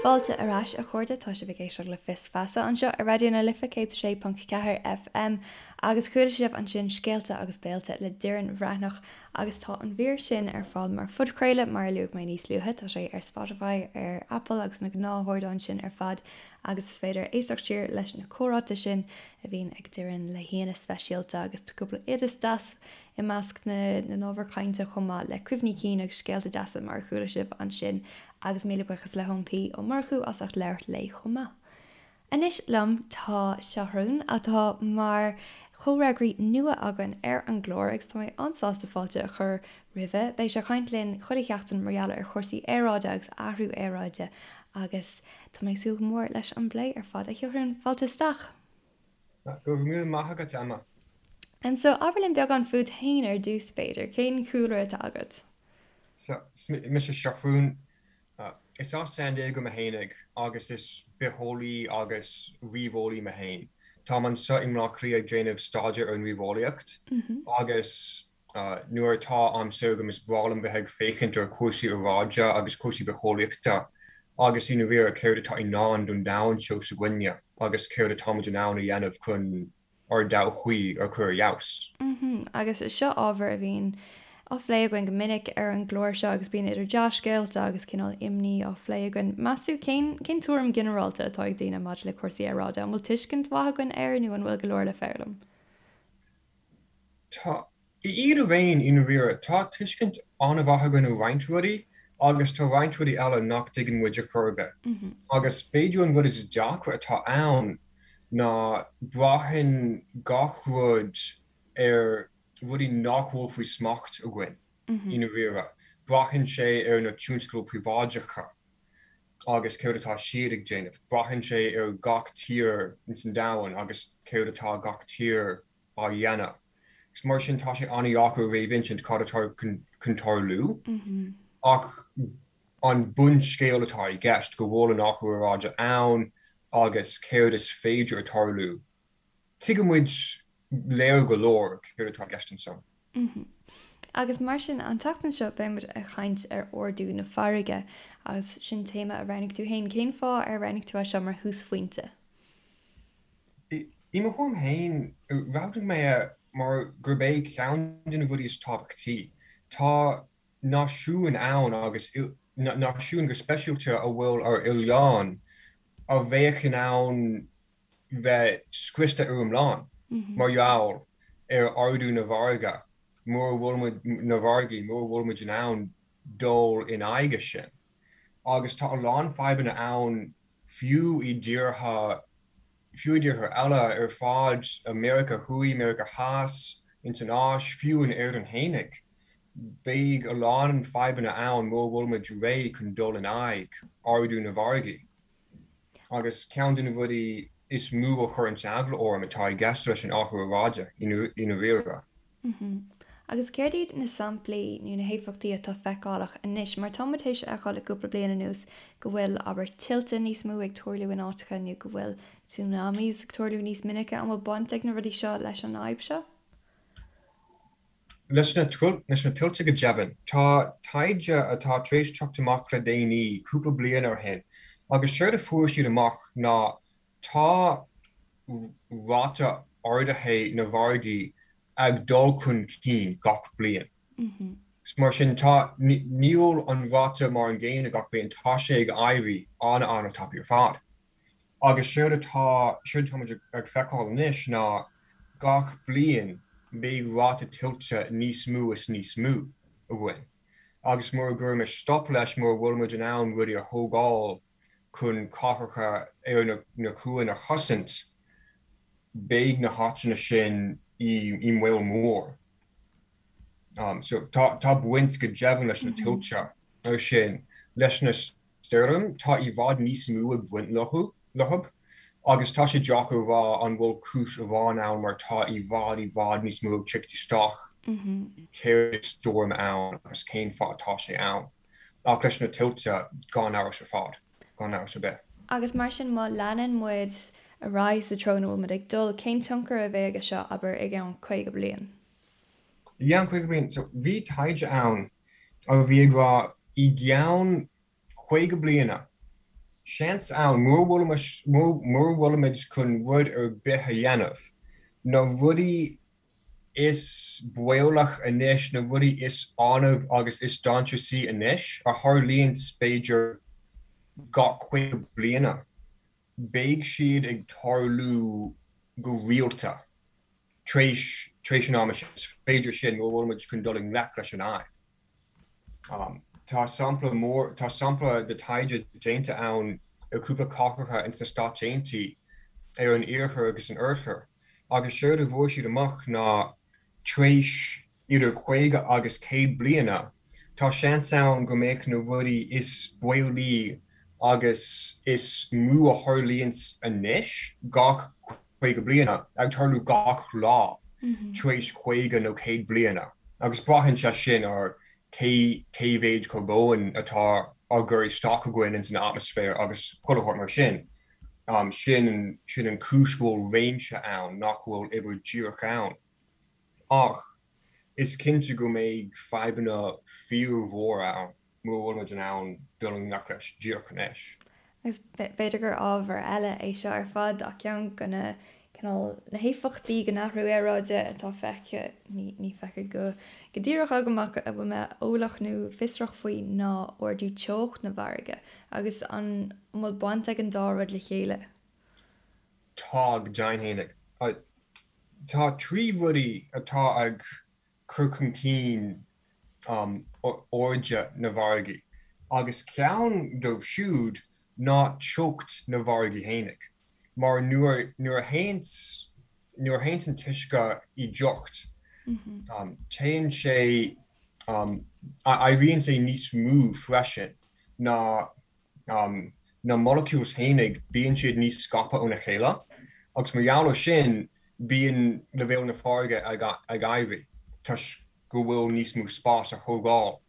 Fáilte ar ais, a chairde, tá sibh ag éisteacht le Fios Feasa anseo ar Raidió na Life 106.4 FM agus chuala sibh ansin Scéalta agus Béilte le Doireann Bhreathnach agus tá an mhír sin ar fáil mar phodchraoladh mar a luaigh mé níos luaithe, tá sé ar Spotify, ar Apple agus na gnáthardáin sin ar fad agus is féidir éisteacht siar leis na comhráite sin a bhíonn ag Doireann le haíonna speisialta agus tá cúpla oideas deas i measc na n-ábhar cainte chomh maith le cuimhní cinn agus scéalta deasa mar a chuala sibh ansin agus míle buíochas le hEoin P Ó Murchú as ucht labhairt léi chomh maith. Anois liom tá Seathrún atá mar chomhfhreagraí nua againn ar an gclár agus tá mé an-sásta fáilte a chur roimhe. Beidh sé ag caint linn chuile sheachtain mar gheall ar chúrsaí aeráide agus athrú aeráide agus tá mé ag súil go mór leis an bplé ar fad. A Sheathrúin, fáilte isteach! Go raibh míle maith agat, Emma. And so, abair linn beagán fút féin ar dtús, b'fhéidir. Cén cúlra atá agat? So, is mise Seathrún. Is as San Diego mé fhéinig agus is bitheolaí agus ríomheolaí mé féin. Táim anseo i mBleá Cliath ag déanamh staidéar ar an ríomheolaíocht agus nuair atá am saor agam is breá liom bheith ag féachaint ar chúrsaí aeráide agus cúrsaí bitheolaíochta agus i ndáiríre céard atá i ndán don domhan seo s'againne agus céard atáimid in ann a dhéanamh chun ár dtodhchaí a chur ar fheabhas. Agus seo ábhar a bhíonn á phlé againn go minic ar an gclár seo agus bíonn idir dea-scéalta agus cineál imní á phlé againn. Meas tú cén cén tuairim ghinearálta atá ag daoine maidir le cúrsaí aeráide? An bhfuil tuiscint mhaith againn air nó an bhfuil go leor le foghlaim? Tá iad araon i ndáiríre. Tá tuiscint an-mhaith againn ar roinnt rudaí agus tá roinnt rudaí eile nach dtuigeann muid ar chor ar bith. Agus b'fhéidir an rud is deacra atá ann ná braitheann gach rud ar rudaí nach bhfuil faoi smacht againn i ndáiríre. Braitheann sé ar na tionscail príobháideacha agus céard atá siad ag déanamh. Braitheann sé ar gach tír ins an domhan agus céard atá gach tír á dhéanamh. Agus mar sin tá sé an-dheacair a réamhinsint cad atá chun tarlú. Ach an bunscéal atá i gceist, go bhfuil an athrú aeráide ann agus céard is féidir a tarlú, tuigeann muid léir go leor céard atá i gceist ansan. Agus mar sin, an tseachtain seo beidh muid ag caint ar ardú na farraige agus sin téama a roghnaigh tú féin. Cén fáth ar roghnaigh tú é seo mar thúsphointe? I mo thuairim féin, roghnaigh mé é mar gurb é ceann de na rudaí is tábhachtaí. Tá náisiúin ann, agus náisiúin go speisialta a bhfuil ar oileáin, a bheadh in ann bheith scriosta ar iomlán mar gheall ar ardú na bhfarraige mura bhfuil muid, na bhfarraigí, mura bhfuil muid in ann dul in aghaidh sin. Agus tá a lán fadhbanna ann fiú i dtíortha, fiú i dtíortha eile ar fad, Meiriceá Thuaidh, Meiriceá Theas, ins an Áis, fiú in Éirinn fhéinig. Beidh a lán fadhbanna ann mura bhfuil muid réidh chun dul in aghaidh ardú na bhfarraigí. Agus ceann de na rudaí is mó a chuireanns eagla orm atá i gceist leis an athrú aeráide, i ndáiríre. Agus céard iad na samplaí nó na héifeachtaí atá feiceálach anois? Mar tá muid théis a fheiceáil le cúpla bliain anuas go bhfuil, abair, tuilte níos mó ag tarlú in áiteacha nó go bhfuil tsunamis ag tarlú níos minice. An bhfuil baint ag na rudaí seo leis an fhadhb seo? Leis na tuilte go deimhin. Tá taighde atá tar éis teacht amach le déanaí, cúpla bliain ó shin, agus séard a fuair siad amach ná tá ráta ardaithe na bhfarraigí ag dul chun cinn gach bliain. Mar sin, tá, níl an ráta mar an gcéanna gach bliain, tá sé ag éirí an-an-tapaidh ar fad. Agus séard atá, séard atá muid ag feiceáil anois ná gach bliain beidh ráta tuilte níos mó is níos mó againn. Agus mura gcuirimis stop leis, mura bhfuil muid in ann rudaí a thógáil chun cathracha ar na cuain a chosaint, beidh na háiteanna sin i mbaol mór. So tá tá baint go deimhin leis na tuilte ar sin. Leis na stoirm, tá i bhfad níos mó ag baint leo leo agus tá sé deacair a rá an bhfuil cúis amháin ann mar tá i bhfad i bhfad níos mó ag teacht isteach céard is stoirm ann agus cén fáth atá sé ann. Ach leis na tuilte, gan amhras ar fad, gan amhras ar bith. Agus mar sin, má leanann muid ar aghaidh sa treo ina bhfuil muid ag dul, cén tionchar a bheidh aige seo, abair, i gceann 50 bliain? I gceann 50 bliain? So, bhí taighde ann a bhí ag rá i gceann 50 bliana. seans ann, mura bhfuilimid chun rud ar bith a dhéanamh, na rudaí is baolach anois, na rudaí is annamh agus is dainséaraí anois, a tharlaíonns b'fhéidir gach 50 bliana, beidh siad ag tarlú go rialta tar éis tar éis an ama sin. Is féidir sin mura bhfuilimid chun dul i ngleic leis an fhadhb. Tá sampla mór, tá sampla de taighde déanta ann ar cúpla cathracha ins na Stáit Aontaithe, ar an iarthar agus an oirthear, agus séard a bhfuair siad amach ná tar éis idir 50 agus 100 bliana, tá seans ann go mbeadh na rudaí is baolaí agus is mó a tharlaíonns anois gach 50 bliana, ag tarlú gach lá tar éis 50 nó 100 bliana, agus braitheann sé sin ar cé cé mhéid carbóin atá á gcur isteach againn ins an atmaisféar agus chuile shórt mar sin. Sin sin an chúis go bhfuil réimse ann nach bhfuil uimhir díreach ann. Ach is cinnte go mbeidh fadhbanna fíormhóra ann mura bhfuilimid in ann dul i ngleic leis díreach anois. Agus b'fhéidir gur ábhar eile é seo ar fad ach ceann de na cineál na héifeachtaí den athrú aeráide atá feicthe, ní feicthe go go díreach agam ach a bhfuil mé eolach nó fiosrach faoi ná ardú teocht na bhfarraige agus an bhfuil baint ag an dá rud le chéile? Tá, go deimhin fhéinig. Tá 3 rudaí atá ag cur chun cinn airde na bhfarraigí, agus ceann dóibh siúd ná teocht na bhfarraigí fhéinig, mar nuair nuair a théanns nuair a théanns an t-uisce i dteocht, téann sé éiríonn sé níos mó freisin ná na molecules fhéinig, bíonn siad níos scaipthe óna chéile agus mar gheall ar sin bíonn leibhéal na farraige ag éirí toisc go bhfuil níos mó spás á thógáil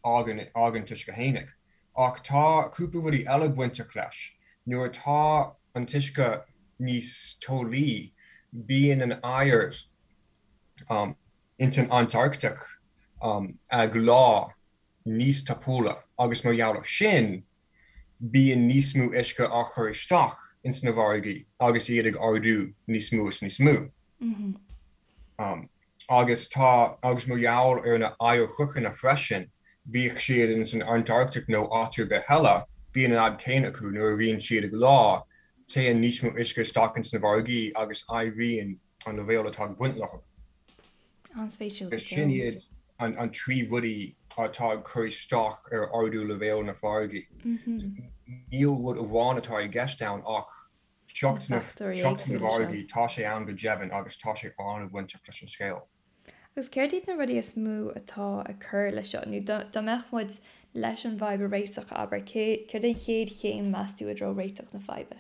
ag an t-uisce fhéinig. Ach tá cúpla rudaí eile bainteach leis. Nuair atá an t-uisce níos teolaí bíonn an oighear ins an Antartaic ag leá níos tapúla agus mar gheall ar sin bíonn níos mó uisce á chur isteach ins na bhfarraigí agus iad ag ardú níos mó is níos mó. Agus tá, agus mar gheall ar na oighearshruthanna freisin, bíodh siad ins an Antartaic nó áit ar bith eile, bíonn an fhadhb céanna acu, nuair a bhíonn siad ag leá, téann níos mó uisce isteach ins na bhfarraigí agus éiríonn an leibhéal atá ag baint leo. An-spéisiúil go Agus sin deo. iad an 3 rudaí atá ag cur isteach ar ardú leibhéal na farraige. Níl rud amháin atá i gceist ann ach Na teocht na fachtóirí teocht na éagsúla seo. bhfarraigí, tá sé ann go deimhin agus tá sé an-bhainteach leis an scéal. Agus céard iad na rudaí is mó atá ag cur leis seo? Nó dá mbeadh muid leis an bhfadhb a réiteach, abair, céard an chéad chéim, meas tú, i dtreo réiteach na faidhbe?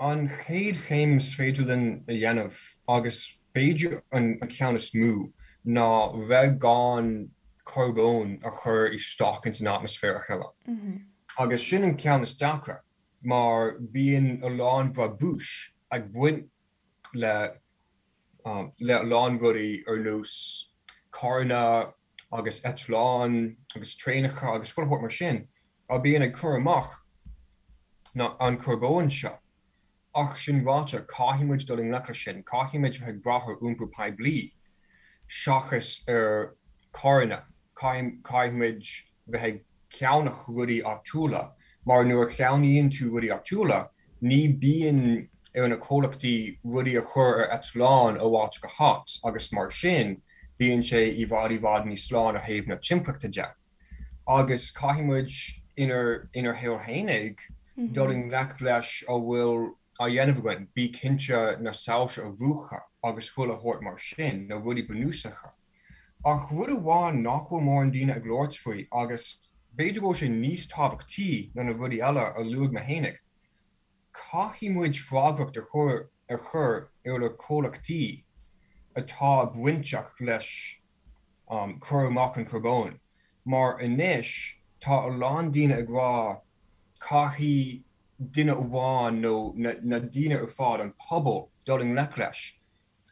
An chéad chéim is féidir linn a dhéanamh, agus b'fhéidir an ceann is mó, ná bheith gan carbón a chur isteach ins an atmaisféar a thuilleadh. Agus sin an ceann is deacra, mar bíonn a lán brabúis ag baint le le a lán rudaí ar nós carranna agus eitleáin agus traenacha agus chuile shórt mar sin a bíonn ag cur amach na an carbóin seo. Ach sin ráite, caithfidh muid dul i ngleic leis sin, caithfidh muid bheith ag brath ar iompar poiblí seachas ar carranna, caithfidh muid bheith ag ceannach rudaí áitiúla, mar nuair a cheannaíonn tú rudaí áitiúla, ní bíonn ar na comhlachtaí rudaí a chur ar eitleán ó áit go háit agus mar sin bíonn sé i bhfad i bhfad níos sláine ó thaobh na timpeallachta de. Agus caithfidh muid inár inár shaol fhéinig dul i ngleic leis a bhfuil á dhéanamh againn, bí cinnte na soilse a mhúchadh agus chuile shórt mar sin, na rudaí bunúsacha. Ach rud amháin nach bhfuil mórán daoine ag labhairt faoi, agus b'fhéidir go bhfuil sé níos tábhachtaí ná na rudaí eile a luaigh mé fhéinig, caithfidh muid freagracht a chur a chur ar na comhlachtaí atá bainteach leis cur amach an charbóin, mar anois tá a lán daoine ag rá caithfidh duine amháin nó na daoine ar fad, an pobal, dul i ngleic leis.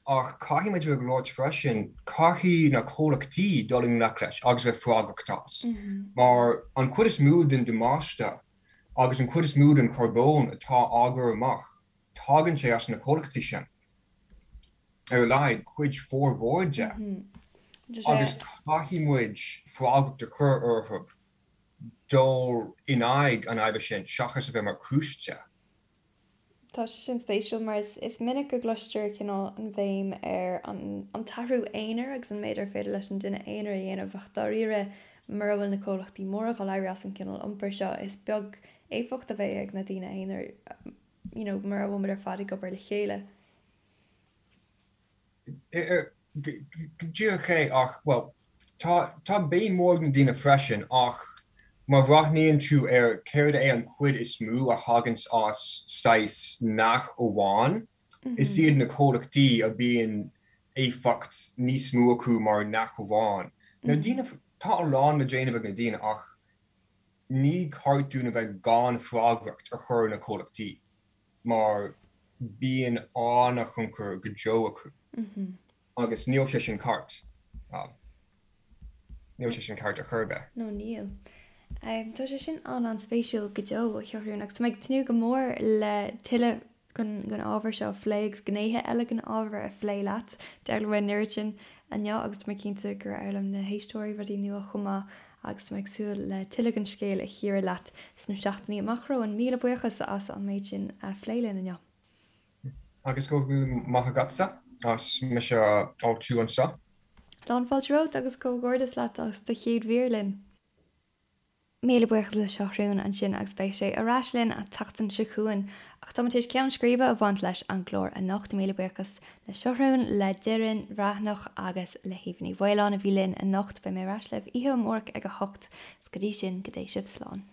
Ach caithfidh muid a bheith ag labhairt freisin, caithfidh na comhlachtaí dul i ngleic leis agus bheith freagrach as. Mar an chuid is mó den damáiste. Agus an chuid is mó den charbón atá á gcur amach, tagann sé as na comhlachtaí sin. Ar a laghad, cuid formhór de. Agus caithfidh muid freagracht a chur orthu dul in aghaidh an fhaidhbe sin seachas a bheith mar chúis de. Tá sé sin spéisiúil mar is minic go gcloistear cineál an bhéim ar an t-athrú aonair agus an méid ar féidir leis an duine aonair a dhéanamh ach dáiríre mura bhfuil na comhlachtaí móra ag dul éirí as an gcineál iompair seo is beag éifeacht a bheidh ag na daoine aonair you know mura bhfuil muid ar fad ag obair le chéile. Go díreach é ach, bhuel, tá, tá béim mhór ag na daoine freisin ach má bhreathnaíonn tú ar céard é an chuid is mó a thaganns as saghas neach amháin, is iad na comhlachtaí a bíonn éifeacht níos mó acu mar neach amháin. Na daoine, tá a lán le déanamh ag na daoine ach ní ceart dúinn a bheith gan freagracht a chur ar na comhlachtaí. mar bíonn an-thionchar go deo acu agus níl sé sin ceart. Níl sé sin ceart ar chor ar bith. No, níl. Tá sé sin an-an-spéisiúil go deo, a Sheathrúin, agus tá mé ag tnúth go mór le tuilleadh den ábhar seo a phlé agus gnéithe eile den ábhar a phlé leat. D'fhoghlaim mé an oiread sin inniu agus tá mé cinnte gur fhoghlaim na héisteoirí rudaí nua chomh maith agus tá mé ag súil le tuilleadh den scéal a chíoradh leat sna seachtainí amach romhainn. Míle buíochas as an méid sin a phlé linn inniu. Agus go raibh míle maith agatsa as mise a fháiltiú anseo. Lán fáilte romhat agus comhghairdeas leat as do chéad mhír linn. Míle buíochas le Seathrún ansin agus beidh sé ar ais linn an tseachtain seo chugainn. Ach táimid tar éis ceann scríbe a bhaint leis an gclár anocht. Míle buíochas le Seathrún, le Doireann Bhreathnach agus le hAoibhe Ní Mhaoláin a bhí linn anocht. Beidh mé ar ais libh oíche amárach ag a hocht. Is go dtí sin, go dté sibh slán.